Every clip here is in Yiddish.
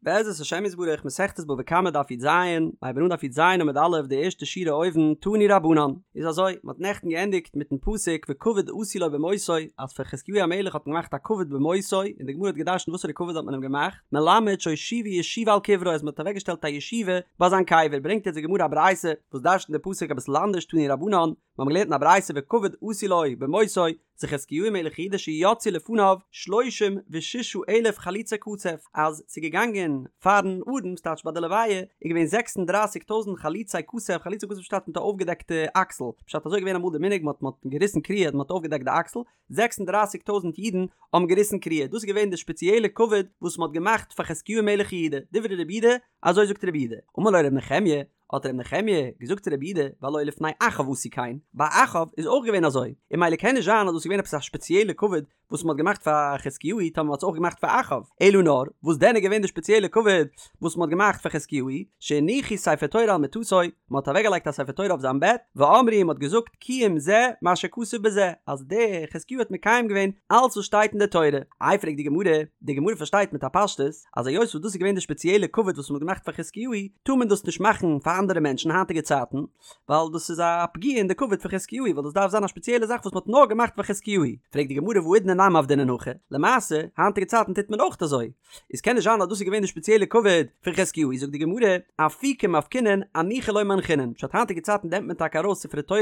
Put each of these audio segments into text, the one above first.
בעזרת השם יתברך מסכת בבא קמא דף י"ז, הייבן אן דף י"ז עמוד א' די ערשטע שורה אויבן, תנו רבנן, איז אזוי, מען האט נעכטן געענדיגט מיטן פסוק וכבוד עשו לו במותו, אז פאר חזקיהו המלך האט מען געמאכט א כבוד במותו, און די גמרא האט געדרשנט וואסערע כבוד האט מען אים געמאכט, מלמד שהושיבו ישיבה על קברו אז מען האט אוועקגעשטעלט א ישיבה ביי זיין קבר, ברענגט יעצט די גמרא א ברייתא וואס דרשנט די פסוק אביסל אנדערש תנו רבנן, מיר האבן געלערנט אין א ברייתא וכבוד עשו לו במותו, זה חזקיהו מלך יהודה שיצאו לפניו שלושים וששה אלף חלוצי כתף, אז ס'איז געגאנגען פארן ארון, ס'טייטש ביי די לוויה, איז געווען זעקס און דרייסיג טויזנט חלוצי כתף, חלוצי כתף פשט מיט א אויפגעדעקטע אקסל, פשט אזוי איז געווען אמאל די מנהג מ'האט מ'האט געריסן קריעה מ'האט אויפגעדעקט די אקסל, זעקס און דרייסיג טויזנט אידן האבן געריסן קריעה, דאס איז געווען די שפעציעלע כבוד וואס מ'האט געמאכט פאר חזקיהו מלך יהודה, דברי רבי יהודה, אזוי זאגט רבי יהודה, אמר לו רבי נחמיה, האט ר' נחמיה געזאגט צו רבי יהודה והלא לפני אחאב עשו כן, ביי אחאב איז אויך געווען אזוי, און ממילא קען נישט זיין אז דאס איז געווען עפעס א שפעציעלע כבוד וואס מען האט געמאכט פאר חזקיהו טאמער מען האט עס אויך געמאכט פאר אחאב, אלא נאר וואס דען איז געווען די שפעציעלע כבוד וואס מען האט געמאכט פאר חזקיהו, שהניחו ספר תורה על מיטתו, מען האט אוועקגעלייגט א ספר תורה אויף זיין בעט, ואמרו און מען האט געזאגט קיים זה מה שכתוב בזה, אז דער חזקיהו האט מקיים געווען אלץ וואס שטייט אין די תורה. איי פרעגט די גמרא, די גמרא פארשטייט מיט א פשטות, אז היות וואס דאס איז געווען די שפעציעלע כבוד וואס מ'האט געמאכט פאר חזקיהו, טאר מען דאס נישט מאכן פאר אנדערע מענטשן היינטיגע צייטן, ווייל דאס איז א פגיעה אין די כבוד פון חזקיהו, ווייל דאס דארף זיין א שפעציעלע זאך וואס מ'האט נאר געמאכט פאר חזקיהו. פרעגט די גמרא והאידנא נמי עבדינן הכי, למעשה, היינטיגע צייטן טוט מען אויך אזוי, איז קען נישט זיין אז דאס איז געווען די שפעציעלע כבוד פון חזקיהו, זאגט די גמרא, אפוקי מפקינן, אנוחי לא מנחינן, פשט היינטיגע צייטן נעמט מען טאקע ארויס ספרי תורה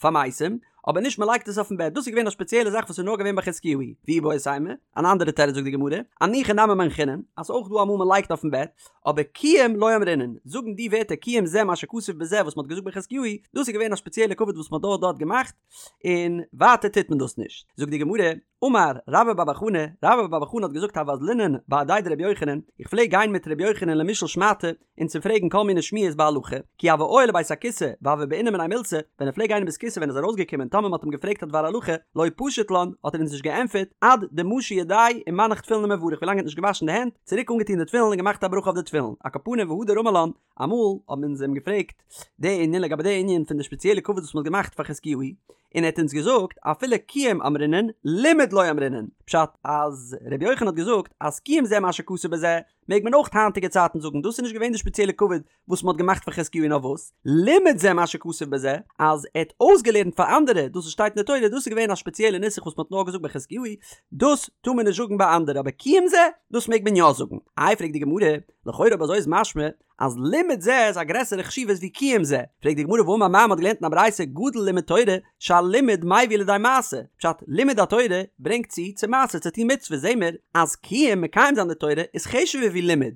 פאר מתים, אבער נישט מ'לייגט עס אויפן בעט, דאס איז געווען א שפעציעלע זאך וואס איז נאר געווען ביי חזקיהו, ואיבעית אימא, אן אנדערע תירוץ זאגט די גמרא, אנוחי נמי מנחינן, אז אויך דא אמאל מ'לייגט אויפן בעט, אבער קיום לא אמרינן, זאגן די ווערטער קיים זה מה שכתוב בזה וואס מ'האט געזאגט ביי חזקיהו, דאס איז געווען א שפעציעלע כבוד וואס מ'האט דארט דארט געמאכט, און ווייטער טוט מען דאס נישט. זאגט די גמרא, אמר רבה בר בר חנה, רבה בר בר חנה האט געזאגט הוה אזלינן בהדיה דרבי יוחנן, איך פלעג גיין מיט רבי יוחנן למישאל שמעתא, און צו פרעגן כל מיני שמועות בהלכה, כי הוה עייל לבית הכסא והוה בעינא מיניה מילתא, ווען ער פלעג גיין אין בית כסא ווען ער איז ארויסגעקומען טאמער מ'האט אים געפרעגט א דבר הלכה, לא פשיט לן, האט ער אונז נישט געענטפערט, עד דמשי ידיה ומנח תפילין ומברך ווילאנג ער האט נישט געוואשן די הענט, צוריק אנגעטון די תפילין און געמאכט א ברכה אויף די תפילין, על כל פנים והדר אמר לן, אמאל האבן אונז אים געפרעגט די ענין לגבי די ענין פון די שפעציעלע כבוד וואס מ'האט געמאכט פאר חזקיהו, און ער האט אונז געזאגט אפילו קיום אמרינן לימוד לא אמרינן, פשט אז רבי יוחנן האט געזאגט אז קיים זה מה שכתוב בזה, מעג מען אויך היינטיגע צייטן זאגן דאס איז נישט געווען די שפעציעלע כבוד וואס מען האט געמאכט פאר חזקיהו נאר וואס לימד זה מה שכתוב בזה אז ער האט אויסגעלערנט פאר אנדערע דאס וואס שטייט אין די תורה דאס איז געווען א שפעציעלע נוסח וואס מען האט נאר געזאגט ביי חזקיהו דאס טאר מען נישט זאגן ביי אנדערע אבער קיים זה דאס מעג מען יא זאגן איי פרעגט די גמרא לכאורה אויב אזוי איז משמע אז לימוד זה איז א גרעסערע חשיבות ווי קיום זה, פרעגט די גמרא והאמר מר מ'האט געלערנט אין א ברייתא גדול לימוד תורה שהלימוד מביא לידי מעשה, פשט לימוד התורה ברענגט צו צו מעשה צו טון מצוות זעהן מיר אז קיום מקיים זיין די תורה איז חשוב'ער ווי לימוד,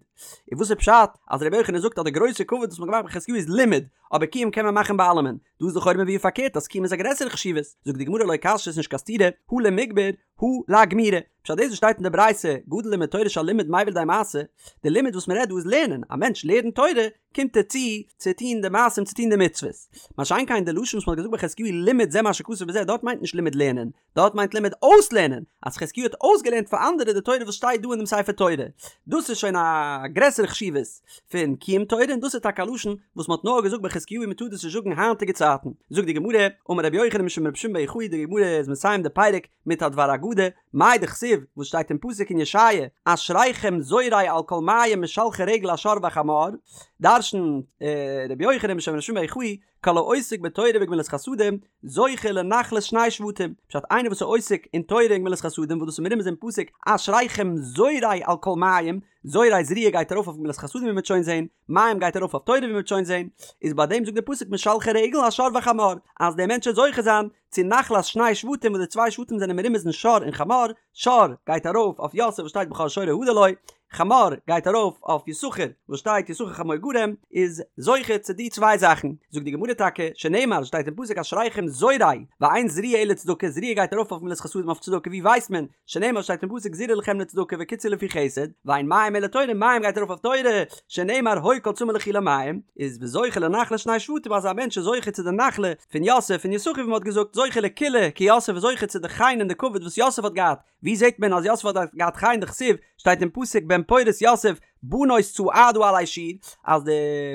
און וואס איז פשט אז רבי יוחנן זאגט אז די גרויסע כבוד וואס מ'האט געמאכט ביי חזקיהו איז לימוד אבער קיום קען מען מאכן ביי אלעמען, דא איז לכאורה מבואר פארקערט אז קיום איז א גרעסערע חשיבות, זאגט די גמרא לא קשיא ס'איז נישט קיין סתירה הא למיגמר הא לאגמורי. פשט דאס וואס שטייט אין די ברייתא גדול לימוד תורה שהלימוד מביא לידי מעשה, די לימוד וואס מען רעדט דא איז לערנען, א מענטש לערנט תורה קומט ער צו צו טון די מעשים צו טון די מצוות, מה שאין כן די לשון וואס מען האט געזאגט ביי חזקיהו לימד זה מה שכתוב בזה דארט מיינט נישט לימוד לערנען, דארט מיינט לימד אויסלערנען, אז חזקיהו האט אויסגעלערנט פאר אנדערע די תורה וואס שטייט דא אין דעם ספר תורה, דאס איז שוין א גרעסערע חשיבות פון קיום תורה און דאס איז טאקע א לשון וואס מען האט נאר געזאגט ביי חזקיהו און מען טאר דאס נישט זאגן היינטיגע צייטן, זאגט די גמרא, אמר רבי יוחנן משום רבי שמעון בר יוחאי די גמרא איז מסיים די פרק מיט א דבר אגדה, מאי דכתיב, וואס שטייט אין פסוק אין ישעיה, אשריכם זורעי על כל מים משלחי רגל השור והחמור, דרש'נט רבי יוחנן משום רבי שמעון בר יוחאי, כל העוסק בתורה וגמילות חסדים, זוכה לנחלת שני שבטים, פשט איינער וואס איז עוסק אין תורה און גמילות חסדים וואס דאס איז מרומז אין פסוק אשריכם זורעי על כל מים, זורע זריעה גייט ארויף אויף גמילות חסדים ווי מ'וועט שוין זעהן, מים גייט ארויף אויף תורה ווי מ'וועט שוין זעהן, איז ביי דעם זאגט דער פסוק משלחי רגל השור והחמור, אז דער מענטש וועט זוכה זיין צו נחלת שני שבטים וואס די צוויי שבטים זענען מרומז אין שור און חמור, שור גייט ארויף אויף יוסף וואס שטייט בכור שורו הדר לו, חמור גייט ארויף אויף יששכר וואס שטייט יששכר חמור גרם, איז זוכה צו די צוויי זאכן, זאגט די גמרא טאקע, שנאמר שטייט אין פסוק אשריכם זורעי, ואין זריעה אלא צדקה, זריעה גייט ארויף אויף גמילות חסדים אויף צדקה, ווי ווייסט מען שנאמר שטייט אין פסוק זרעו לכם לצדקה וקצרו לפי חסד, ואין מים אלא תורה, מים גייט ארויף אויף תורה, שנאמר הוי כל צמא לכו למים, איז וזוכה לנחלת שני שבטים אז א מענטש איז זוכה צו די נחלה פון יוסף און יששכר ווי מען האט געזאגט זוכה לכילה כיוסף איז זוכה צו די חן און די כבוד וואס יוסף האט געהאט, ווי זעט מען אז יוסף האט געהאט חן דכתיב שטייט אין פסוק בן פורת יוסף בנות צעדה עלי שור אז די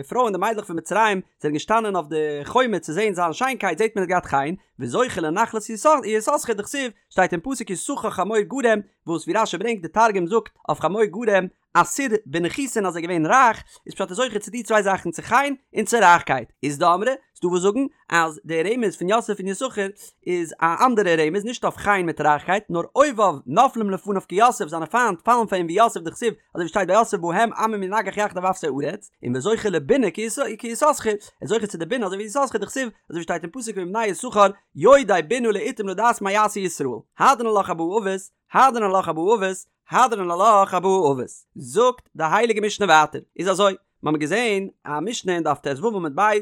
פרויען די מיידלעך פון מצרים זענען געשטאנען אויף די חומה צו זען זיין שיינקייט זעט מען ער האט געהאט חן, וזוכה לנחלת יששכר דכתיב שטייט אין פסוק יששכר חמור גרם וואס ווי רשי ברענגט די תרגום זאגט אויף חמור גרם. עתיר בנכיסין אז ער איז געווען רייך, איז פשט ער איז זוכה צו די צוויי זאכן צו חן און צו רייכקייט, אית דאמרי, ס'דא וואס זאגן אז די רמז פון יוסף און יששכר איז א אנדערע רמז נישט אויף חן מיט רייכקייט נאר אויביו נופלים לפניו כיוסף זיינע פיינט פאלן פאר אים ווי יוסף דכתיב אזוי ווי שטייט ביי יוסף בהם עמים ינגח יחדיו אפסי ארץ און וזוכה לבינה כיששכר ער איז זוכה צו די בינה אזוי ווי יששכר דכתיב אזוי ווי שטייט אין פסוק ומבני יששכר יודעי בינה לעתים לדעת מה יעשה ישראל הדרן עלך ארבעה אבות הדרן עלך ארבעה אבות הדרן עלך ארבעה אבות זאגט די הייליגע משנה ווייטער איז אזוי מיר האבן געזען א משנה אין דף ט"ו עמוד ב',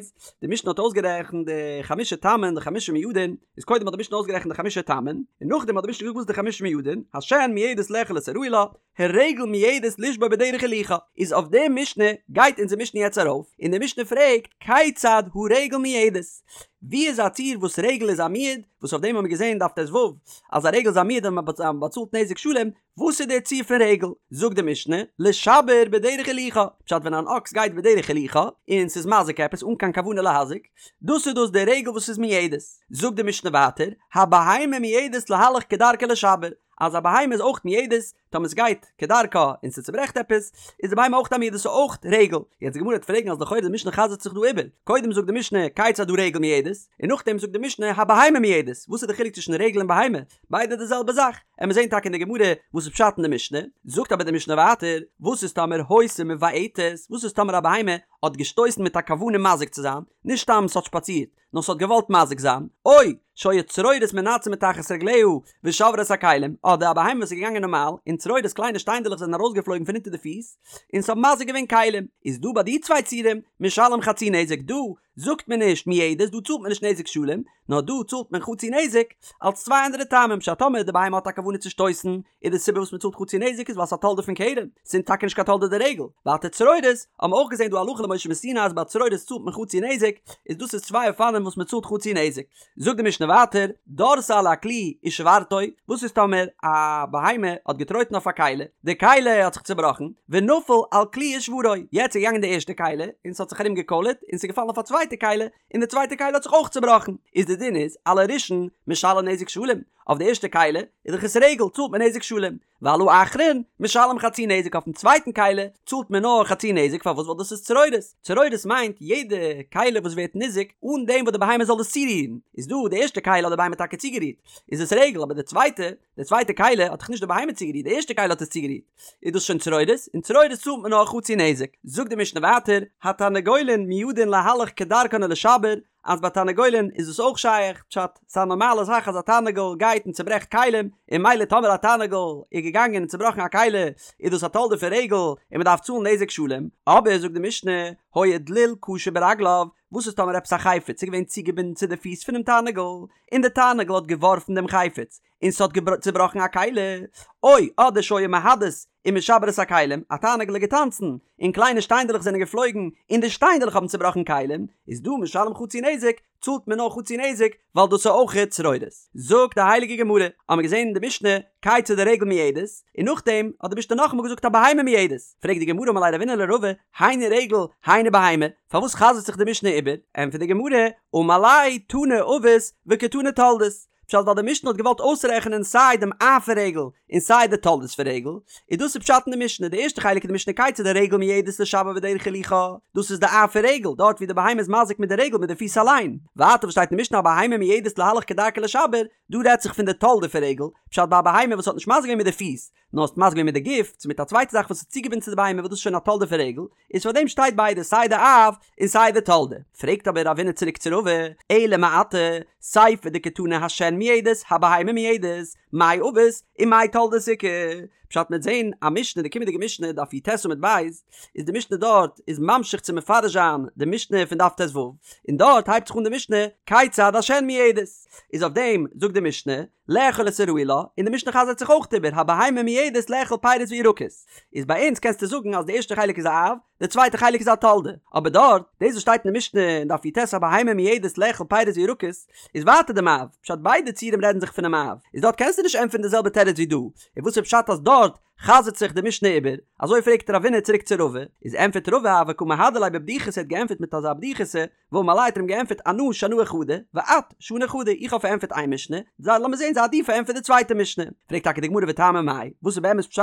די משנה האט אויסגערעכנט די חמשה תמין די חמשה מועדין, איז קודם האט די משנה אויסגערעכנט די חמשה תמין, און נאכדעם האט די משנה געזאגט וואס איז די חמשה מועדין, השן מועדת לאכול את הראוי לה, הרגל מועדת לשבור בדרך הילוכה, איז אויף די משנה גייט אונזער משנה יעצט ארויף, און די משנה פרעגט כיצד הרגל מועדת? ווי איז א ציור וואס רגל איז א מועד, וואס אויף דעם האבן מיר געזען אין דף ט"ו אז א רגל איז א מועד און מען באצאלט נזק שלם, וואס איז דער ציור פון רגל? זאגט די משנה, לשבר בדרך הילוכה, פשט ווען אן אקס גייט בדרך הילוכה, און ס'איז מזיק עפעס אן קיין כוונה להזיק, דאס איז דאס די רגל וואס איז מועדת. זאגט די משנה ווייטער, הבהמה מועדת להלך כדרכה לשבר, אז א בהמה איז אויך מועדת, טאמער ס'גייט כדרכה און ס'צוברעכט עפעס, איז די בהמה אויך א מועדת ס'איז אויך רגל. יעצט די גמרא וועט פרעגן אז לכאורה די משנה חזר'ט זיך דא איבער, קודם זאגט די משנה כיצד הרגל מועדת, און נאכדעם זאגט די משנה הבהמה מועדת, וואס איז די חילוק צווישן רגל און בהמה? ביידע די זעלבע זאך, עמיר זעהן טאקע אין די גמרא וואס איז פשט אין די משנה, זאגט אבער די משנה ווייטער, וואס איז טאמער היתה מבעטת, וואס איז טאמער א בהמה האט געשטויסן מיט א כוונה מזיק צו זיין, נישט סתם ס'האט שפאצירט, נאר ס'האט געוואלט מזיק זיין, או שהיו צרורות מנתזין מתחת רגליה ושברו את הכלים, אדער א בהמה וואס איז געגאנגען נארמאל, און צרורות קליינע שטיינדעלעך זענען ארויסגעפלויגן פון אונטער די פיס, און ס'האט מזיק געווען כלים, איז דא ביי די צוויי ציורים, משלם חצי נזק דא, זאגט מען נישט מועדת, דא צאלט מען נישט נזק שלם, נאר דא צאלט מען חצי נזק, אלס צוויי אנדערע טעמים, פשט טאמער די בהמה האט א כוונה צו שטויסן, איז די סיבה וואס מען צאלט חצי נזק איז ווייל ס'איז א תולדה פון קרן, ס'איז טאקע נישט קיין תולדה דרגל. ווייטער צרורות, האבן מיר אויך געזען דא הלכה למשה מסיני אז ביי צרורות צאלט מען חצי נזק, איז דאס איז צוויי אופנים וואס מען צאלט חצי נזק. זאגט די משנה ווייטער, דרסה על הכלי ושברתו, וואס איז טאמער א בהמה האט געטרויטן אויף א כלי, די כלי האט זיך צובראכן, ונפל על כלי ושברו, יעצט איז געגאנגען די ערשטע כלי, און ס'האט זיך ארום געקוילערט, און ס'איז געפאלן אויף א צווייטע כלי, און די צווייטע כלי האט זיך אויך צובראכן, איז די דין איז, על הראשון משלם נזק שלם, אויף די ערשטע כלי איז דאך עס רגל צאלט מען נזק שלם, ועל האחרון משלם חצי נזק אויפן צווייטן כלי צאלט מען נאר חצי נזק פארוואס ווייל דאס איז צרורות, צרורות מיינט יעדע כלי וואס ווערט ניזוק אן דעם וואס די בהמה זאל עס צורירן, איז דא די ערשטע כלי האט די בהמה טאקע צוגערירט איז עס רגל אבער די צווייטע די צווייטע כלי האט דאך נישט די בהמה צוגערירט די ערשטע כלי האט עס צוגערירט איז דאס שוין צרורות און צרורות צאלט מען נאר חצי נזק, זאגט די משנה ווייטער התרנגולין מועדין להלך כדרכן ולשבר אז ביי תרנגולין איז דאס אויך שייך, פשט, ס'איז א נארמאלע זאך אז א תרנגול גייט און צוברעכט כלים, און ממילא טאמער א תרנגול איז געגאנגען און צובראכן א כלי איז דאס א תולדה פון רגל און מ'דארף צאלן נזק שלם, אבער זאגט די משנה, היה דליל קשור ברגליו, וואס איז טאמער עפעס א חפץ איז געווען צוגעבינדן צו די פיס פונעם תרנגול, און די תרנגול האט געווארפן דעם חפץ, און ס'האט צובראכן א כלי, או אדער שהיה מהדס ומשבר את הכלים, א תרנגול איז געטאנצן, און קליינע שטיינדעלעך זענען געפלויגן, און די שטיינדעלעך האבן צובראכן כלים, איז דא משלם חצי נזק, צאלט מען נאר חצי נזק, ווייל דאס איז אויך צרורות. זאגט די הייליגע גמרא, האמיר געזען אין די משנה, כיצד הרגל מועדת, און נאכדעם האט די משנה נאכאמאל געזאגט הבהמה מועדת, פרעגט די גמרא אמר ליה רבינא לרבא, היינו רגל, היינו בהמה, פארוואס חזר'ט זיך די משנה איבער? ענטפערט די גמרא, אמר ליה תני אבות וקתני תולדות, פשט ווייל די משנה האט געוואלט אויסרעכענען סיי דעם אב פון רגל און סיי די תולדות פון רגל, איז דאס איז פשט אין די משנה, די ערשטע חלק אין די משנה כיצד הרגל מועדת לשבר בדרך הילוכה, דאס איז די אב פון רגל, דארט ווי די בהמה איז מזיק מיט די רגל מיט די פיס אליין, ווייטער וואס שטייט אין משנה הבהמה מועדת להלך כדרכה לשבר, דא רעדט זיך פון די תולדה פון רגל, פשט ביי א בהמה וואס האט נישט מזיק געווען מיט די פיס, נאר ס'האט מזיק געווען מיט די גוף, צו מיט א צווייטע זאך וואס איז צוגעבינדן צו די בהמה וואס דאס איז שוין א תולדה פון רגל, איז פאר דעם שטייט ביידע סיי די אב און סיי די תולדה. פרעגט אבער רבינא צוריק צו רבא, אלא מעתה, סיפא דקתני השן מועדת, הבהמה מועדת, מאי אבות ומאי תולדות איכא? פשט מ'עט זעהן א משנה די קומענדיגע משנה דף י"ט עמוד ב', איז די משנה דארט איז ממשיך צו מפרש זיין די משנה פון דף ט"ו, און דארט הייבט זיך אן די משנה כיצד השן מועדת, איז אויף דעם זאגט די משנה, לאכול את הראוי לה, און די משנה חזר'ט זיך אויך איבער הבהמה מועדת לאכול פירות וירקות. איז ביי אונז קענסטו זאגן אז די ערשטע חלק איז א אב, די צווייטע חלק איז א תולדה. אבער דארט, דאס וואס שטייט אין די משנה אין דף י"ט הבהמה מועדת לאכול פירות וירקות, איז ווייטער דעם אב, פשט ביידע ציורים רעדן זיך פונעם אב, איז דארט קענסטו נישט ענטפערן די זעלבע תירוץ ווי דא, און וואס איז פשט אז דארט. חזר'ט זיך די משנה איבער? אזוי פרעגט רבינא צוריק צו רבא, איז ענטפערט רבא הוה קא מהדר ליה בבדיחותא ער האט געענטפערט מיט אזא בדיחותא, ואמר ליה האט ער אים געענטפערט אנא שנאי חדא, ואת שני חדא, איך האב פארענטפערט איין משנה, זיי לאמיר זען זיי דו פארענטפער די צווייטע משנה. פרעגט טאקע די גמרא וטעמא מאי, וואס איז באמת פשט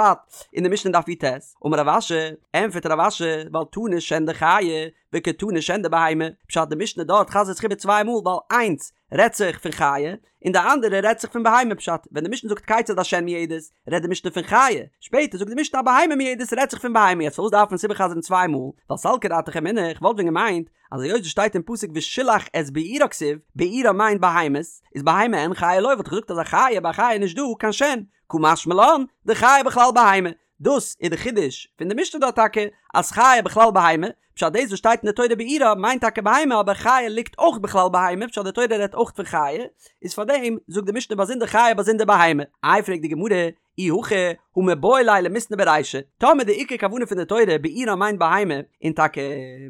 אין די משנה אין דף י"ט? אמר רב אשי, ענטפערט רב אשי, ווייל תנא שן דחיה, וקתני שן דבהמה, פשט די משנה דארט חזר'ט זיך איבער צוויי מאל ווייל איינס רעדט זיך פון חיה, און די אנדערע רעדט זיך פון בהמה פשט ווען די משנה זאגט כיצד השן מועדת רעדט די משנה פון חיה, שפעטער זאגט די משנה א בהמה מועדת רעדט זיך פון בהמה יעצט פארוואס דארף מען עס איבערחזר'ן צוויי מאל ווייל סלקא דעתך אמינא איך וואלט ווען געמיינט אז היות עס שטייט אין פסוק ושילח את בעירה כתיב בעירה מיינט בהמות איז בהמה אין חיה לא וואלט איך געזאגט אז א חיה ביי א חיה איז נישט דא קיין שן קא משמע לן דחיה בכלל בהמה דאס איז די חידוש פון די משנה דארט טאקע אז חיה בכלל בהמה, פשט דאס וואס שטייט אין די תורה בעירה מיינט טאקע בהמה אבער חיה ליגט אויך בכלל בהמה פשט די תורה רעדט אויך פון חיה, איז פארדעם זאגט די משנה באזונדער חיה באזונדער בהמה. איי פרעגט די גמרא, אי הכי הא מיבעי ליה למיתנא ברישא, טאמער די עיקר כוונה פון די תורה בעירה מיינט בהמה, און טאקע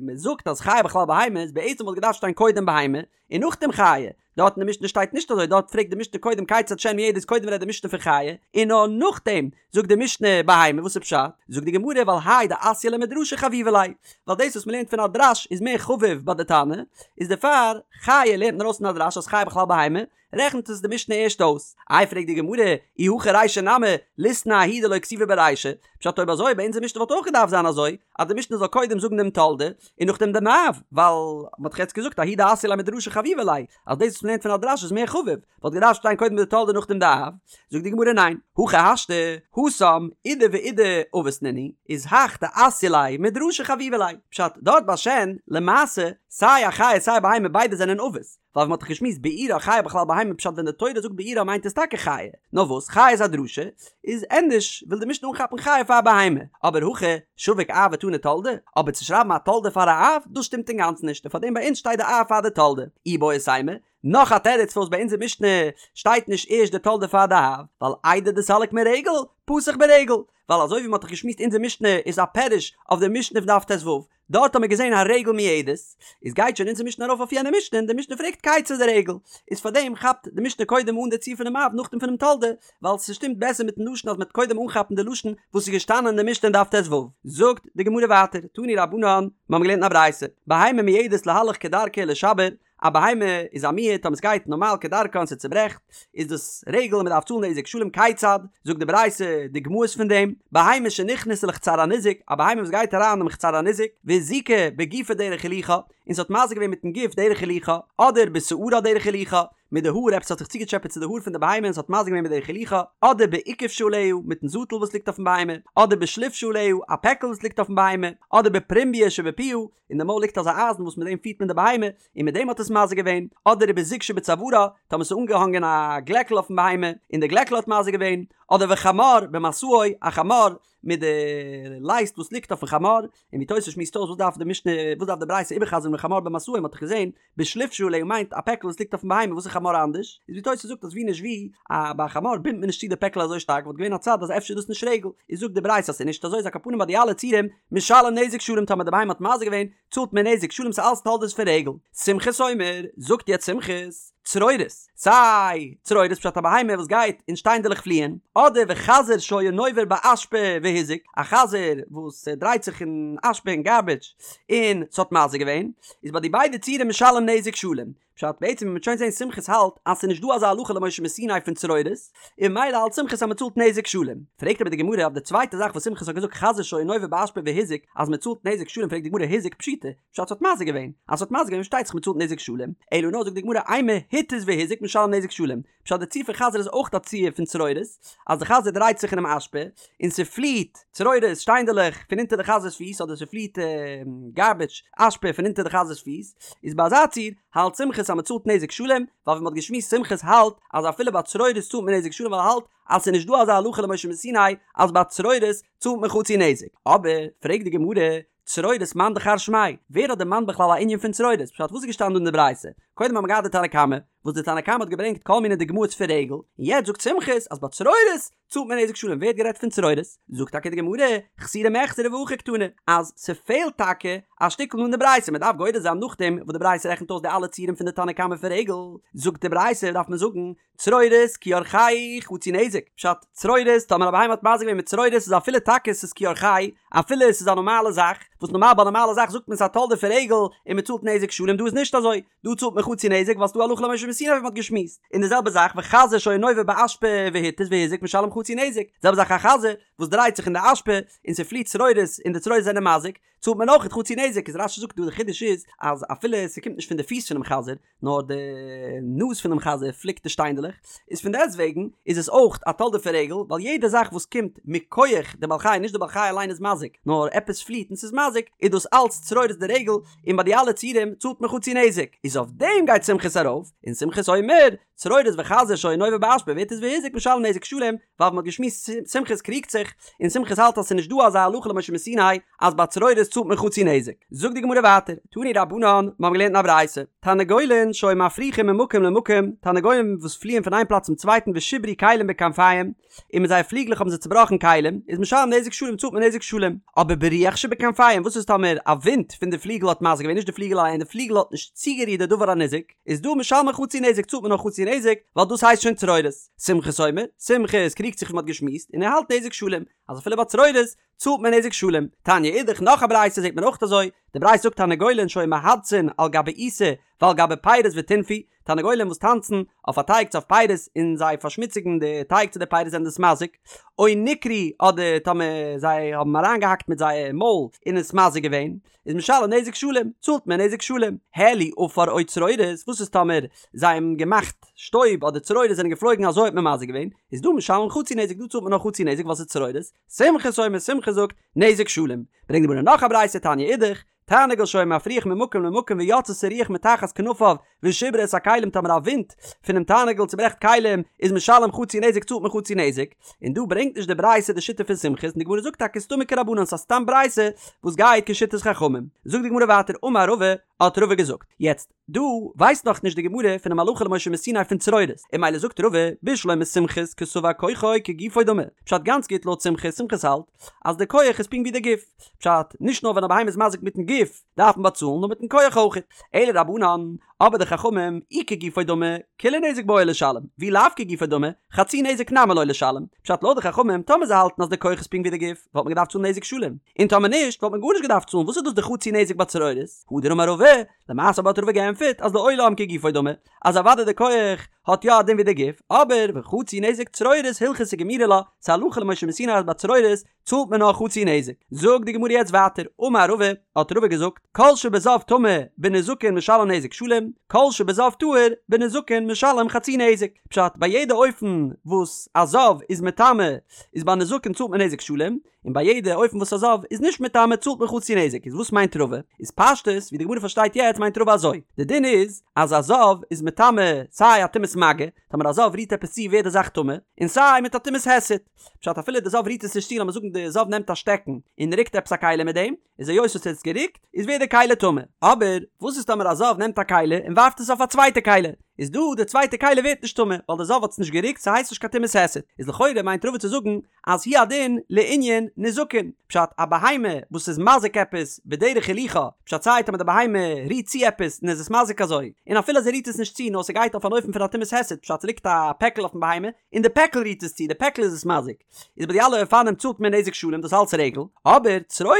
מען זאגט אז חיה בכלל בהמה איז בעצם וואלט געדארפט שטיין קודם בהמה און נאכדעם חיה, דארט אין די משנה שטייט נישט אזוי, דארט פרעגט די משנה קודם כיצד שן מועדת קודם רעדט די משנה פון חיה, און נאר נאכדעם זאגט די משנה בהמה, וואס איז פשט? זאגט די גמרא ווייל האי דאתיא ליה מדרשא חביבא ליה, ווייל דאס וואס מ'לערנט פון א דרש איז מער חביב ביי די תנא, איז דערפאר חיה לערנט מען ארויס פון א דרש אז חיה בכלל בהמה, רעכנט עס די משנה ערשט אויס. איי פרעגט די גמרא, אי הכי רישא נמי, ליתני ההיא דלא כתיבא ברישא, פשט אויב אזוי ביי אונזער משנה וואלט אויך געדארפט זיין אזוי, אז די משנה זאל קודם זאגן דעם תולדה, און נאכדעם דעם אב, ווייל מ'האט דאך יעצט געזאגט ההיא דאתיא ליה מדרשא חביבא ליה, אז דאס וואס מ'לערנט פון א דרש איז מער חביב, וואלט געדארפט שטיין קודם די תולדה נאכדעם די אב, זאגט די גמרא ניין, הכי השתא, התם, אידי ואידי אבות נינהו, איז הך דאתיא ליה מדרשא חביבא ליה, פשט, דארט ביי שן, למעשה, סיי א חיה סיי א בהמה ביידע זענען אבות, ווייל ווי מ'האט דאך געשמועסט בעירה חיה בכלל בהמה פשט ווען די תורה זאגט בעירה מיינט עס טאקע חיה, נאר וואס חיה איז א דרשה, איז ענדערש וויל די משנה אנכאפן חיה פאר בהמה, אבער הכא שביק אב ותני תולדה, אבער צו שרייבן א תולדה פאר א אב, דאס שטימט אינגאנצן נישט, און פארדעם ביי אונז שטייט די אב פאר די תולדה. איבעית אימא, נאך א תירוץ פארוואס ביי אונזער משנה שטייט נישט ערשט די תולדה פאר די אב, ווייל איידי דסליק מרגל, פתח ברגל, ווייל אזוי ווי מ'האט דאך געשמועסט אונזער משנה איז א פירוש אויף די משנה פון דף ט"ו, דארט האט מען געזען הרגל מועדת, איז גייט שוין אונזער משנה ארויף אויף יענע משנה און די משנה פרעגט כיצד הרגל, איז פארדעם כאפט די משנה קודם אן די ציור פונעם אב נאכדעם פונעם תולדה, ווייל ס'שטימט בעסער מיטן לשון אז מ'וועט קודם אנכאפן די לשון וואס איז געשטאנען אין די משנה אין דף ט"ו. זאגט די גמרא ווייטער, תנו רבנן, מיר האבן געלערנט אין א ברייתא, בהמה מועדת להלך כדרכה ולשבר, א בהמה איז א מועד טאמער סגייט נארמאל כדרכה און ס'צוברעכט איז דאס רגל און מ'דארף צאלן נזק שלם כיצד זאגט די ברייתא דוגמאות פון דעם בהמה שנכנסה לחצר הניזק א בהמה וואס גייט אריין אינעם חצר הניזק והזיקה בגופה דרך הילוכה און ס'האט מזיק געווען מיטן גוף דרך הילוכה אדער בשערה דרך הילוכה מיט די האר עפעס האט זיך צוגעטשעפעט צו די האר פון די בהמה און ס'האט מזיק געווען בדרך הילוכה אדער באוכף שעליה מיטן זאטל וואס ליגט אויפן בהמה אדער בשליף שעליה א פעקל וואס ליגט אויפן בהמה אדער בפרומביא שבפיה אין די מויל ליגט אזא אייזן וואס מיט דעם פירט מען די בהמה, און מיט דעם האט עס מזיק געווען, אדער ובזוג שבצווארה, טאמער ס'איז אנגעהאנגען א גלעקל אויפן בהמה, און די גלעקל האט מזיק געווען, אדער וחמור במשאו, א חמור מיט די לייסט וואס ליגט אויפן חמור, און ווי תוס' שמועסט אויס וואס דארף די משנה, וואס דארף די ברייתא איבערחזר'ן וחמור במשאו, מ'האט דאך געזען, בשליף שעליה מיינט א פעקל וואס ליגט אויפן בהמה, וואס איז חמור אנדערש? איז ווי תוס' זאגט אז ווי נישט ווי, א ביי א חמור בינדט מען נישט צו די פעקל אזוי שטארק, וואלט געווען א צד אז אפשר איז דאס נישט רגל, איז זאגט די ברייתא אז ס'איז נישט אזוי איז על כל פנים ביי די אלע ציורים, משלם נזק שלם טאמער די בהמה האט מזיק געווען צאלט מען נזק שלם ס'איז אלס תולדות פון רגל. סומכוס אומר, זאגט יעצט סומכוס, צרורות, סיי צרורות פשט א בהמה וואס גייט אין שטיינדעלעך פליען, אדער וחזיר שהיה נובר באשפה והזיק, א חזיר וואס דרייט זיך אין אשפה אין גארביטש און ס'האט מזיק געווען, איז ביי די ביידע ציורים משלם נזק שלם. פשט, בעצם ווי מ'וועט שוין זעהן סומכוס האלט אז ס'איז נישט דא אזא הלכה למשה מסיני פון צרורות, און ממילא האלט סומכוס אז מ'צאלט נזק שלם. פרעגט אבער די גמרא אויף די צווייטע זאך וואס סומכוס האט געזאגט חזיר שהיה נובר באשפה והזיק אז מ'צאלט נזק שלם פרעגט די גמרא הזיק פשיטא, פשט ס'האט מזיק געווען, אז ס'האט מזיק געווען פארשטייט זיך מ'צאלט נזק שלם, אלא נאר זאגט די גמרא אימא התיז והזיק משלם נזק שלם, פשט די ציור פון חזיר איז אויך א ציור פון צרורות, אז די חזיר דרייט זיך אינעם אשפה, און ס'פליעט צרורות, שטיינדעלעך, פון אונטער די חזיר'ס פיס, אדער ס'פליעט גארביטש, אשפה, פון אונטער די חזיר'ס פיס, איז ביי אזא ציור, האלט סומכוס אז מ'צאלט נזק שלם, ווייל ווי מ'האט געשמועסט סומכוס האלט אז אפילו ביי צרורות צאלט מען נזק שלם ווייל ער האלט אז ס'איז נישט דא אזא הלכה למשה מסיני אז ביי צרורות צאלט מען חצי נזק. אבער, פרעגט די גמרא, צרורות מאן דכר שמיה, ווער האט דערמאנט בכלל א ענין פון צרורות? פשט וואס איז געשטאנען דא אין די ברייתא? קודם האבן מיר געהאט די תנא קמא, וואס די תנא קמא האט געברענגט כל מיני דוגמאות פון רגל, און יעצט זאגט סומכוס אז ביי צרורות צאלט מען נזק שלם, ווער האט גערעדט פון צרורות? זאגט טאקע די גמרא, חסורי מחסרא והכי קתני, אז ס'פעלט טאקע א שטיקל אין די ברייתא, מ'דארף גורס זיין נאכדעם וואס די ברייתא רעכנט אויס די אלע ציורים פון די תנא קמא פון רגל, זאגט די ברייתא דארף מען זאגן, צרורות כי אורחיה חצי נזק, פשט, צרורות, טאמער א בהמה האט מזיק געווען מיט צרורות איז אפילו טאקע ס'איז כי אורחיה, אפילו עס איז א נארמאלע זאך, וואס נארמאל ביי א נארמאלע זאך זאגט מען ס'איז א תולדה פון רגל און מ'צאלט נזק שלם דא איז נישט אזוי, דא צאלט מען חצי נזק ווייל ס'דא הלכה למשה מסיני ווי מ'האט געשמועסט, און די זעלבע זאך וחזיר שהיה נובר באשפה והתיז והזיק משלם חצי נזק, די זעלבע זאך א חזיר וואס דרייט זיך אין די אשפה און ס'פליעט צרורות און די צרורות זענען מזיק, צאלט מען אויך חצי נזק, איז רש"י זאגט דא די חידוש איז אז אפילו ס'קומט נישט פון די פיס פונעם חזיר נאר די נאז פונעם חזיר פליקט די שטיינדלעך, איז פון דעסט וועגן איז עס אויך א תולדה פון רגל, ווייל יעדע זאך וואס קומט מכח די בעל חי, נישט די בעל חי אליין איז מזיק, נאר עפעס פליעט און ס'איז מזיק, איז דאס אלץ צרורות דרגל, און ביי די אלע ציורים צאלט מען חצי נזק, איז אויף דעם גייט סומכוס ארויף, און סומכוס אומר, צרורות וחזיר שהיה נובר באשפה והתיז והזיק משלם נזק שלם, ווייל ווי מ'האט געשמועסט סומכוס קריגט זיך, און סומכוס האלט אז ס'איז נישט דא אזא הלכה למשה מסיני אז ביי צרורות צאלט מען חצי נזק. זאגט די גמרא ווייטער, תנו רבנן, מ'האבן געלערנט אין א ברייתא, תרנגולין שהיו מפריחין ממקום למקום, תרנגולים וואס פליען פון איין פלאץ צום צווייטן ושיברו כלים בכנפיהם, און מיט זייער פליגלעך האבן זיי צובראכן כלים, איז משלם נזק שלם צאלט מען נזק שלם. אבער ברוח שבכנפיהם, וואס איז טאמער א ווינט פון די פליגל האט מזיק געווען, נישט די פליגל אליין, די פליגל האט נישט צוגערירט די דבר הניזק, איז דא משלמין חצי נזק צאלט מען נאר חצי נזק, ווייל דאס הייסט שוין צרורות. סומכוס אומר, סומכוס קריגט זיך ווי מ'האט געשמועסט, און ער האלט נזק שלם, אז אפילו ביי צרורות צאלט מען נזק שלם. תניא אידך נאך א ברייתא זעט מען אויך אזוי, די ברייתא זאגט תרנגולין שהיו מהדסין על גבי עיסה ועל גבי פירות וטינפו, תרנגולים וואס טאנצן אויף א טייג צו אויף פירות און זיי פארשמוציגן די טייג צו די פירות זענען דאס מזיק, או ניקרו אדער טאמער זיי האבן אריינגעהאקט מיט זייער מויל און עס מזיק געווען, איז משלם נזק שלם, צאלט מען נזק שלם. העלו עפר או צרורות, וואס איז טאמער זיי האבן געמאכט שטויב אדער צרורות זענען געפלויגן אזוי האט מען מזיק געווען, איז דא משלם חצי נזק דא צאלט מען נאר חצי נזק ווייל ס'איז צרורות, סומכוס אומר סומכוס זאגט, נזק שלם. ברענגט די גמרא נאך א ברייתא תניא אידך, תרנגול שהיה מפריח ממקום למקום ויצתה רוח מתחת כנפיו ושיברה את הכלים טאמער א ווינט פונעם תרנגול צוברעכט כלים איז משלם חצי נזק צאלט מען חצי נזק, און דא ברענגט נישט די ברייתא די שיטה פון סומכוס און די גמרא זאגט טאקע סתמא כרבנן ס'איז א סתם ברייתא וואס גייט כשיטת חכמים. זאגט די גמרא ווייטער אמר רבא האט רבא געזאגט יעצט דא ווייסט נאך נישט די גמרא פונעם הלכה למשה מסיני פון צרורות און ממילא זאגט רבא בשלמא סומכוס קסבר כוחו כגופו דמי פשט גאנץ גוט לויט סומכוס סומכוס האלט אז די כח איז פונקט ווי די גוף פשט נישט נאר ווען א בהמה איז מזיק מיטן גוף דארף מען באצאלן נאר מיטן כח אויך אלא רבנן אבער די חכמים אי כגופו דמי כולי נזק בעי לשלם ואי לאו כגופו דמי חצי נזק נמי לא לשלם פשט לויט די חכמים טאמער זיי האלטן אז די כח איז פונקט ווי די גוף וואלט מען געדארפט צאלן נזק שלם און טאמער נישט וואלט מען גארנישט געדארפט צאלן וואס איז דאס די חצי נזק ביי צרורות הדר אמר רבא למעשה אבער האט רבא געענטפערט אז לעולם כגופו דמי, אז אוודאי די כח האט יא א דין ווי די גוף, אבער וחצי נזק צרורות הלכתא גמירי לה, ס'איז הלכה למשה מסיני אז ביי צרורות צאלט מען נאר חצי נזק. זאגט די גמרא יעצט ווייטער, אמר רבא, האט רבא געזאגט, כל שבזב טמא בנזקין משלם נזק שלם, כל שבזב טהור בנזקין משלם חצי נזק. פשט, ביי יעדע אופן וואס א זב איז מטמא איז ביי נזקין צאלט מען נזק שלם, און ביי יעדע אופן וואס א זב איז נישט מטמא צאלט מען חצי נזק, איז וואס מיינט רבא? איז פשטות ווי די גמרא פארשטייט יעצט מיינט רבא אזוי, די דין איז אז א זב איז מטמא סיי א טומאת מגע, טאמער א זב רירט עפעס צו ווערט די זאך טמא, און סיי מיט א טומאת היסט, פשט אפילו די זב רירט עס נישט צו לאמיר זאגן די זב נעמט א שטעקן און רוקט עפעס א כלי מיט דעם, איז היות עס האט עס גערוקט איז ווערט די כלי טמא, אבער וואס איז טאמער א זב נעמט א כלי און ווארפט עס אויף א צווייטע כלי, איז דא די צווייטע כלי ווערט נישט טמא ווייל די זב האט עס נישט גערוקט ס'הייסט נישט קיין טומאת היסט, איז לכאורה מיינט רבא צו זאגן אז הוא הדין לענין נזקין, פשט א בהמה וואס איז מזיק עפעס בדרך הילוכה, פשט סיי טאמער די בהמה רירט צו עפעס און איז עס מזיק אזוי, און אפילו אז ער רירט עס נישט צו נאר ס'גייט אויף אן אופן פון א טומאת היסט, פשט ס'ליגט א פעקל אויפן בהמה און די פעקל רירט עס צו, די פעקל איז עס מזיק, איז ביי די אלע אופנים צאלט מען נזק שלם דאס אלץ רגל, אבער צרורות,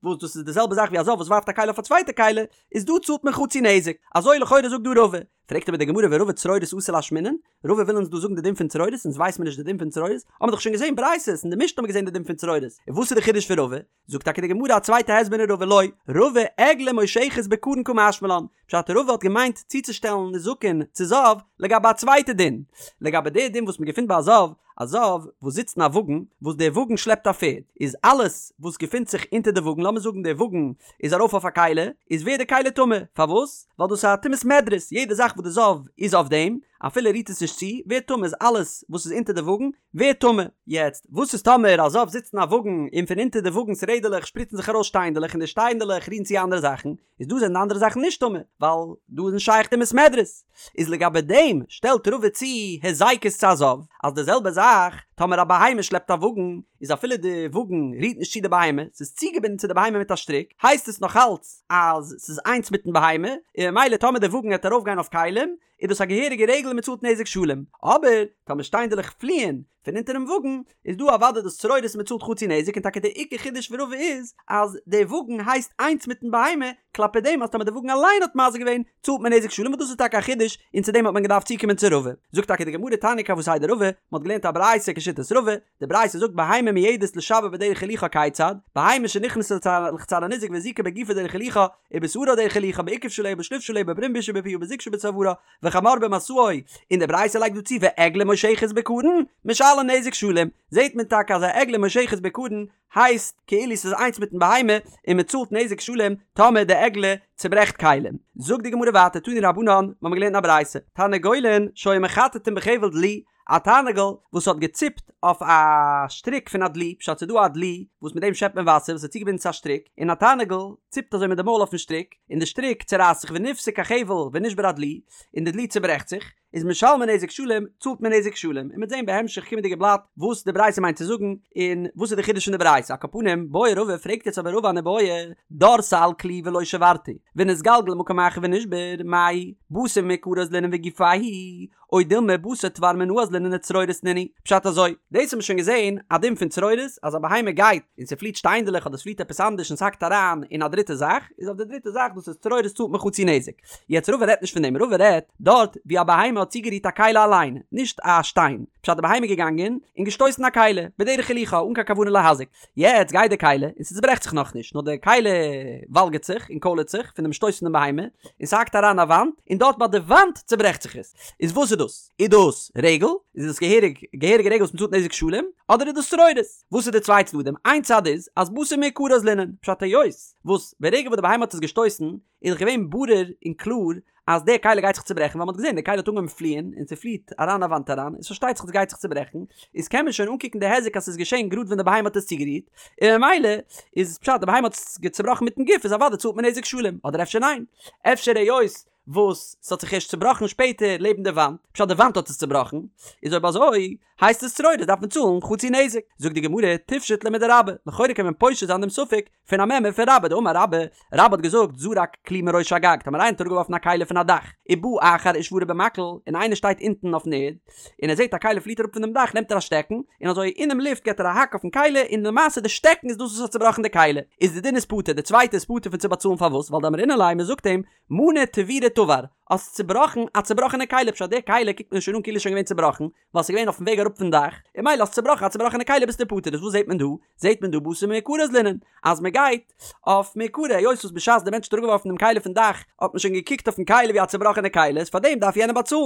וואס דאס איז די זעלבע זאך ווי א זב וואס ווארפט א כלי אויף א צווייטע כלי, איז דא צאלט מען חצי נזק, אזוי לכאורה זאגט דא רבא, פרעגט אבער די גמרא ורבא צרורות אתא לאשמועינן, רבא וויל אונז דא זאגן די דין פון צרורות, אונז ווייסט מיר נישט די דין פון צרורות, האבן מיר דאך שוין געזען ברייתות, אין די משנה האבן מיר געזען די דין פון צרורות, און וואס איז די חידוש פון רבא? זאגט טאקע די גמרא א צווייטע הסבר אין רבא לא, רבא עגלה מושכת בקרון קא משמע לן, פשט רבא האט געמיינט צוצושטעלן נזקין צו זב לגבי א צווייטע דין, לגבי די דין וואס מען געפינט ביי א זב. א זב וואס זיצט אין א וואגן וואס דער וואגן שלעפט א פערד, איז אלעס וואס געפינט זיך אונטער די וואגן, לאמיר זאגן דער וואגן איז ארויף אויף א כלי, איז ווערט די כלי טמא, פארוואס? ווייל דאס איז א טומאת מדרס, יעדע זאך וואס די זב איז אויף דעם, אפילו ער רירט עס נישט צו, ווערט טמא, איז אלעס וואס איז אונטער די וואגן ווערט טמא. יעצט, וואס איז טאמער א זב זיצט אין א וואגן און פון אונטער די וואגנ'ס רעדעלעך שפריצן זיך ארויס שטיינדעלעך און די שטיינדעלעך רירן צו אנדערע זאכן, איז דא זענען די אנדערע זאכן נישט טמא, ווייל דא איז נישט שייך טומאת מדרס. איז לגבי דעם שטעלט רבא צו היזקות צו א זב, אז די זעלבע זאך טאמער א בהמה שלעפט א וואגן, איז אפילו די וואגן רירט נישט צו די בהמה, ס'איז צוגעבינדן צו די בהמה מיט א שטריק, הייסט עס נאך אלץ אז ס'איז איינס מיטן בהמה, און ממילא טאמער די וואגן העט ארויפגיין אויף כלים, איז דאס א געהעריגע רגל און מ'צאלט נזק שלם. אבער טאמער שטיינדעלעך פליען פון אונטערן וואגן, איז דא אוודאי דאס צרורות און מ'צאלט חצי נזק און טאקע די עיקר חידוש פון רבא איז אז די וואגן הייסט איינס מיטן בהמה, כלפי דעם אז טאמער די וואגן אליין האט מזיק געווען צאלט מען נזק שלם וואס דאס איז טאקע א חידוש און צו דעם האט מען געדארפט צוקומען צו רבא. זאגט טאקע די גמרא תניא כוותיה דרבא, מ'האט געלערנט א ברייתא כשיטת רבא, די ברייתא זאגט בהמה מועדת לשבר בדרך הילוכה כיצד, בהמה שנכנסה לחצר הניזק והזיקה בגופה דרך הילוכה, ובשערה דרך הילוכה בעיקב שעליה בשלוף שעליה בברום שבפיה ובזוג שבצווארה, וחמור במשאו, און די ברייתא לייגט דא צו ועגלה מושכת בקרון, משלם נזק שלם, זעט מען טאקע אז א עגלה מושכת בקרון הייסט כאילו ס'איז איינס מיטן בהמה און מ'צאלט נזק שלם טאמער די עגלה צוברעכט כלים. זאגט די גמרא ווייטער תנו רבנן, מ'האמיר געלערנט אין א ברייתא, תרנגולין שהיו מחטטין בחבל דלי, א תרנגול וואס האט געציפט אויף א שטריק פון א דלי, פשט ס'איז דא א דלי וואס מיט דעם שעפט מען וואסער וואס איז צוגעבינדן צו א שטריק, און א תרנגול ציפט אזוי מיט די מויל אויפן שטריק, און די שטריק צורייסט זיך ונפסק החבל ונשבר הדלי, און די דלי צוברעכט זיך, איז משלמין נזק שלם, צאלט מען נזק שלם, און מ'וועט זען בהמשך קומענדיגע בלאט וואס די ברייתא מיינט צו זאגן, און וואס איז די חידוש פון די ברייתא, על כל פנים, בעי רבא פרעגט יעצט אבער רבא אן איבעיא, דרסה על כלי ולא שברתו, ונתגלגל למקום אחר ונשבר, מאי, בתר מעיקרא אזלינן וגופיה הוא, או דילמא בתר תבר מינא אזלינן וצרורות נינהו, פשט אזוי, דאס האט מען שוין געזען א דין פון צרורות, אז א בהמה גייט און ס'פליט שטיינדעלעך אדער ס'פליט עפעס אנדערש און ס'האקט אריין אין א דריטע זאך, איז אויף די דריטע זאך דאס איז צרורות צאלט מען חצי נזק. יעצט רבא רעדט נישט פון דעם, רבא רעדט דארט ווי א בהמה האט צוגערירט א כלי אליין, נישט א שטיין, פשט די בהמה איז געגאנגען און געשטויסן א כלי, בדרך הילוכה אן קיין כוונה להזיק, יעצט גייט די כלי און ס'צוברעכט זיך נאכנישט, נאר די כלי וואלגערט זיך און קוילערט זיך פון דעם שטויס פון די בהמה, און ס'האקט אריין א וואנט, און דארט ביי די וואנט צוברעכט זיך עס. איז וואס איז דאס? איז דאס רגל? איז דאס געהעריג געהעריגע רגל וואס מ'צאלט נזק שלם? אדער איז דאס צרורות? וואס איז די צוויי צדדים? איין צד איז אז בתר מעיקרא אזלינן, פשט היות וואס ברגע וואס די בהמה האט עס געשטויסן איז דאך געווען ברור און קלאר אז די כלי גייט זיך צוברעכן ווייל מ'האט געזען די כלי האט אנגעהויבן פליען און ס'פליעט אריין א וואנט אריין איז פארשטייט זיך אז ס'גייט זיך צוברעכן איז קען מען שוין אנקוקן די היזק אז ס'איז געשען גראד ווען די בהמה האט עס צוגערירט און ממילא איז פשט די בהמה האט עס צובראכן מיטן גוף איז אוודאי צאלט מען נזק שלם אדער אפשר ניין אפשר היות וואס ס'האט זיך ערשט צובראכן שפעטער לעבן די וואנט פשט די וואנט האט עס צובראכן איז אויב אזוי הייסט עס צרורות דארף מען צאלן חצי נזק זאגט די גמרא תפשוט ליה מדרבה לכאורה קען מען פושט זיין דעם ספק פון א מימרא פון רבה דאמר רבה, רבה האט געזאגט זרק כלי מראש הגג, טאמער איינער האט אראפגעווארפן א כלי פון א דאך, ובא אחר ושברו במקל, און איינער שטייט אונטן אויפן ערד, און ער זעט א כלי פליט אראפ פון דעם דאך נעמט ער א שטעקן, און אזוי אינעם לופט געט ער א האק אויפן כלי, און למעשה די שטעקן איז דאס וואס האט צובראכן די כלי, איז די דין איז פטור, די צווייטע איז פטור פון צו באצאלן פארוואס ווייל דאמרינן ליה מען זאגט אים מנה תבירא תבר, האסט צובראכן א צובראכענע כלי פשט די כלי קוקט מען שוין אן כאילו איז שוין געווען צובראכן, ווייל ס'איז געווען אויפן וועג אראפ פון דאך, און ממילא האסט צובראכן א צובראכענע כלי ביסטו פטור, איז וואס זעט מען דא? זעט מען דא בתר מעיקרא אזלינן, אז מען גייט אויף מעיקרא, היות וואס בשעת די מענטש האט אראפגעווארפן דעם כלי פון דאך האט מען שוין געקוקט אויפן כלי ווי א צובראכענע כלי, איז פארדעם דארף יענער באצאלן.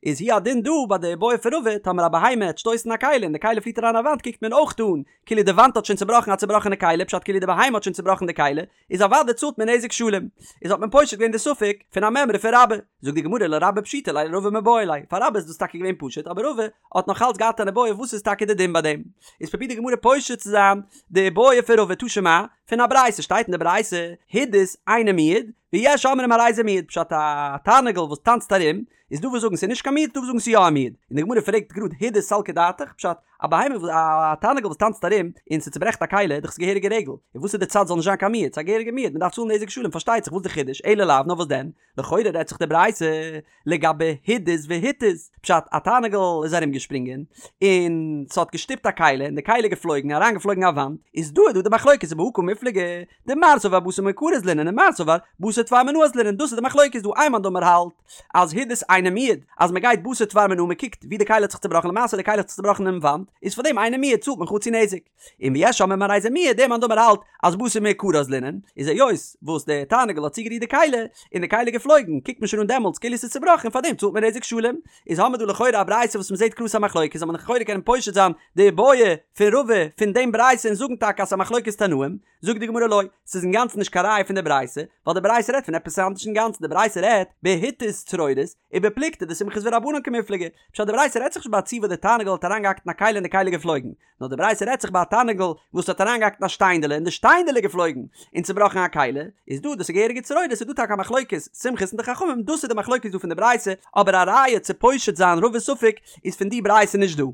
איז הוא הדין דא ביי די איבעיא פון רבא, טאמער א בהמה העט שטויסן א כלי און די כלי פליט אריין א וואנט קוקט מען אויך אן כאילו די וואנט האט שוין צובראכן א צובראכענע כלי, פשט כאילו די בהמה האט שוין צובראכן די כלי, איז אוודאי צאלט מען נזק שלם. איז האט מען פושט געווען די ספק פון א מימרא פון רבה. זאגט די גמרא לרבה פשיטא ליה לרבא מיבעי ליה, פאר רבה איז דאס טאקע געווען פשוט אבער רבא האט נאך אלץ געהאט אן איבעיא וואס איז טאקע די דין ביי דעם. איז פרובירט די גמרא פושט צו זיין די איבעיא פון רבא תא שמע, פון א ברייתא שטייט אין די ברייתא הידוס אינו מועד ויש אומרים הרי זה מועד פשט א תרנגול וואס טאנצט ארום איז דא וואס זאגן ס'איז נישט קיין מועד דא וואס זאגן ס'איז יא א מועד און די גמרא פרעגט גראד הידוס סלקא דעתך פשט א בהמה וואס א תרנגול וואס טאנצט ארום און ס'צוברעכט א כלי איז דאך ס'געהעריגע רגל און וואס איז די צד זאל נישט זיין קיין מועד ס'איז א געהעריגע מועד מ'דארף צאלן נזק שלם פארשטייט זיך וואס די חידוש אלא לאו נאר וואס דען לכאורה רעדט זיך די ברייתא לגבי הידוס והתיז פשט א תרנגול איז ארום געשפרינגען און ס'האט געשטופט א כלי און די כלי איז געפלויגן אריין געפלויגן א וואנט איז דא איז דא די מחלוקת ובהא קמיפלגי דמר סבר בתר מעיקרא אזלינן און מר סבר בתר תבר מינא אזלינן דאס איז די מחלוקת דא איין מאן דאמר האלט אז הידוס אינו מועד אז מען גייט בתר תבר מינא מען קוקט ווי די כלי האט זיך צובראכן למעשה די כלי האט זיך צובראכן אינעם וואנט. איז פאר דעם אינו מועד צאלט מען חצי נזק. און ויש אומרים הרי זה מועד, דער מאן דאמר האלט אז בתר מעיקרא אזלינן, איז היות וואס דער תרנגול האט צוגערירט די כלי, און די כלי איז געפלויגן, קוקט מען שוין אן דעמאלטס כאילו עס איז צובראכן און פאר דעם צאלט מען נזק שלם. איז האמיר דא לכאורה א ברייתא וואס מ'זעט קלאר ס'איז א מחלוקת, זאל מען לכאורה קענען פושט זיין די בעיא פון רבא פון דעם ברייתא און זאגן טאקע אז ס'איז א מחלוקת תנאים, זאגט די גמרא לא, ס'איז אינגאנצן נישט קיין ראיה פון די ברייתא, ווייל די ברייתא רעדט פון עפעס אנדערש אינגאנצן, די ברייתא רעדט בהתיז צרורות, ובפלוגתא דסומכוס ורבנן קמיפלגי, פשט די ברייתא רעדט זיך נישט ביי א ציור וואס די תרנגול האט אריינגעהאקט אין א כלי און די כלי איז געפלויגן, נאר די ברייתא רעדט זיך ביי א תרנגול וואס האט אריינגעהאקט אין א שטיינדעלע און די שטיינדעלע איז געפלויגן און צובראכן א כלי, איז דא דאס איז געהעריגע צרורות איז דא טאקע א מחלוקת סומכוס און די חכמים דאס איז די מחלוקת דא פון די ברייתא, אבער א ראיה צו פושט זיין רבא'ס ספק איז פון די ברייתא נישט דא.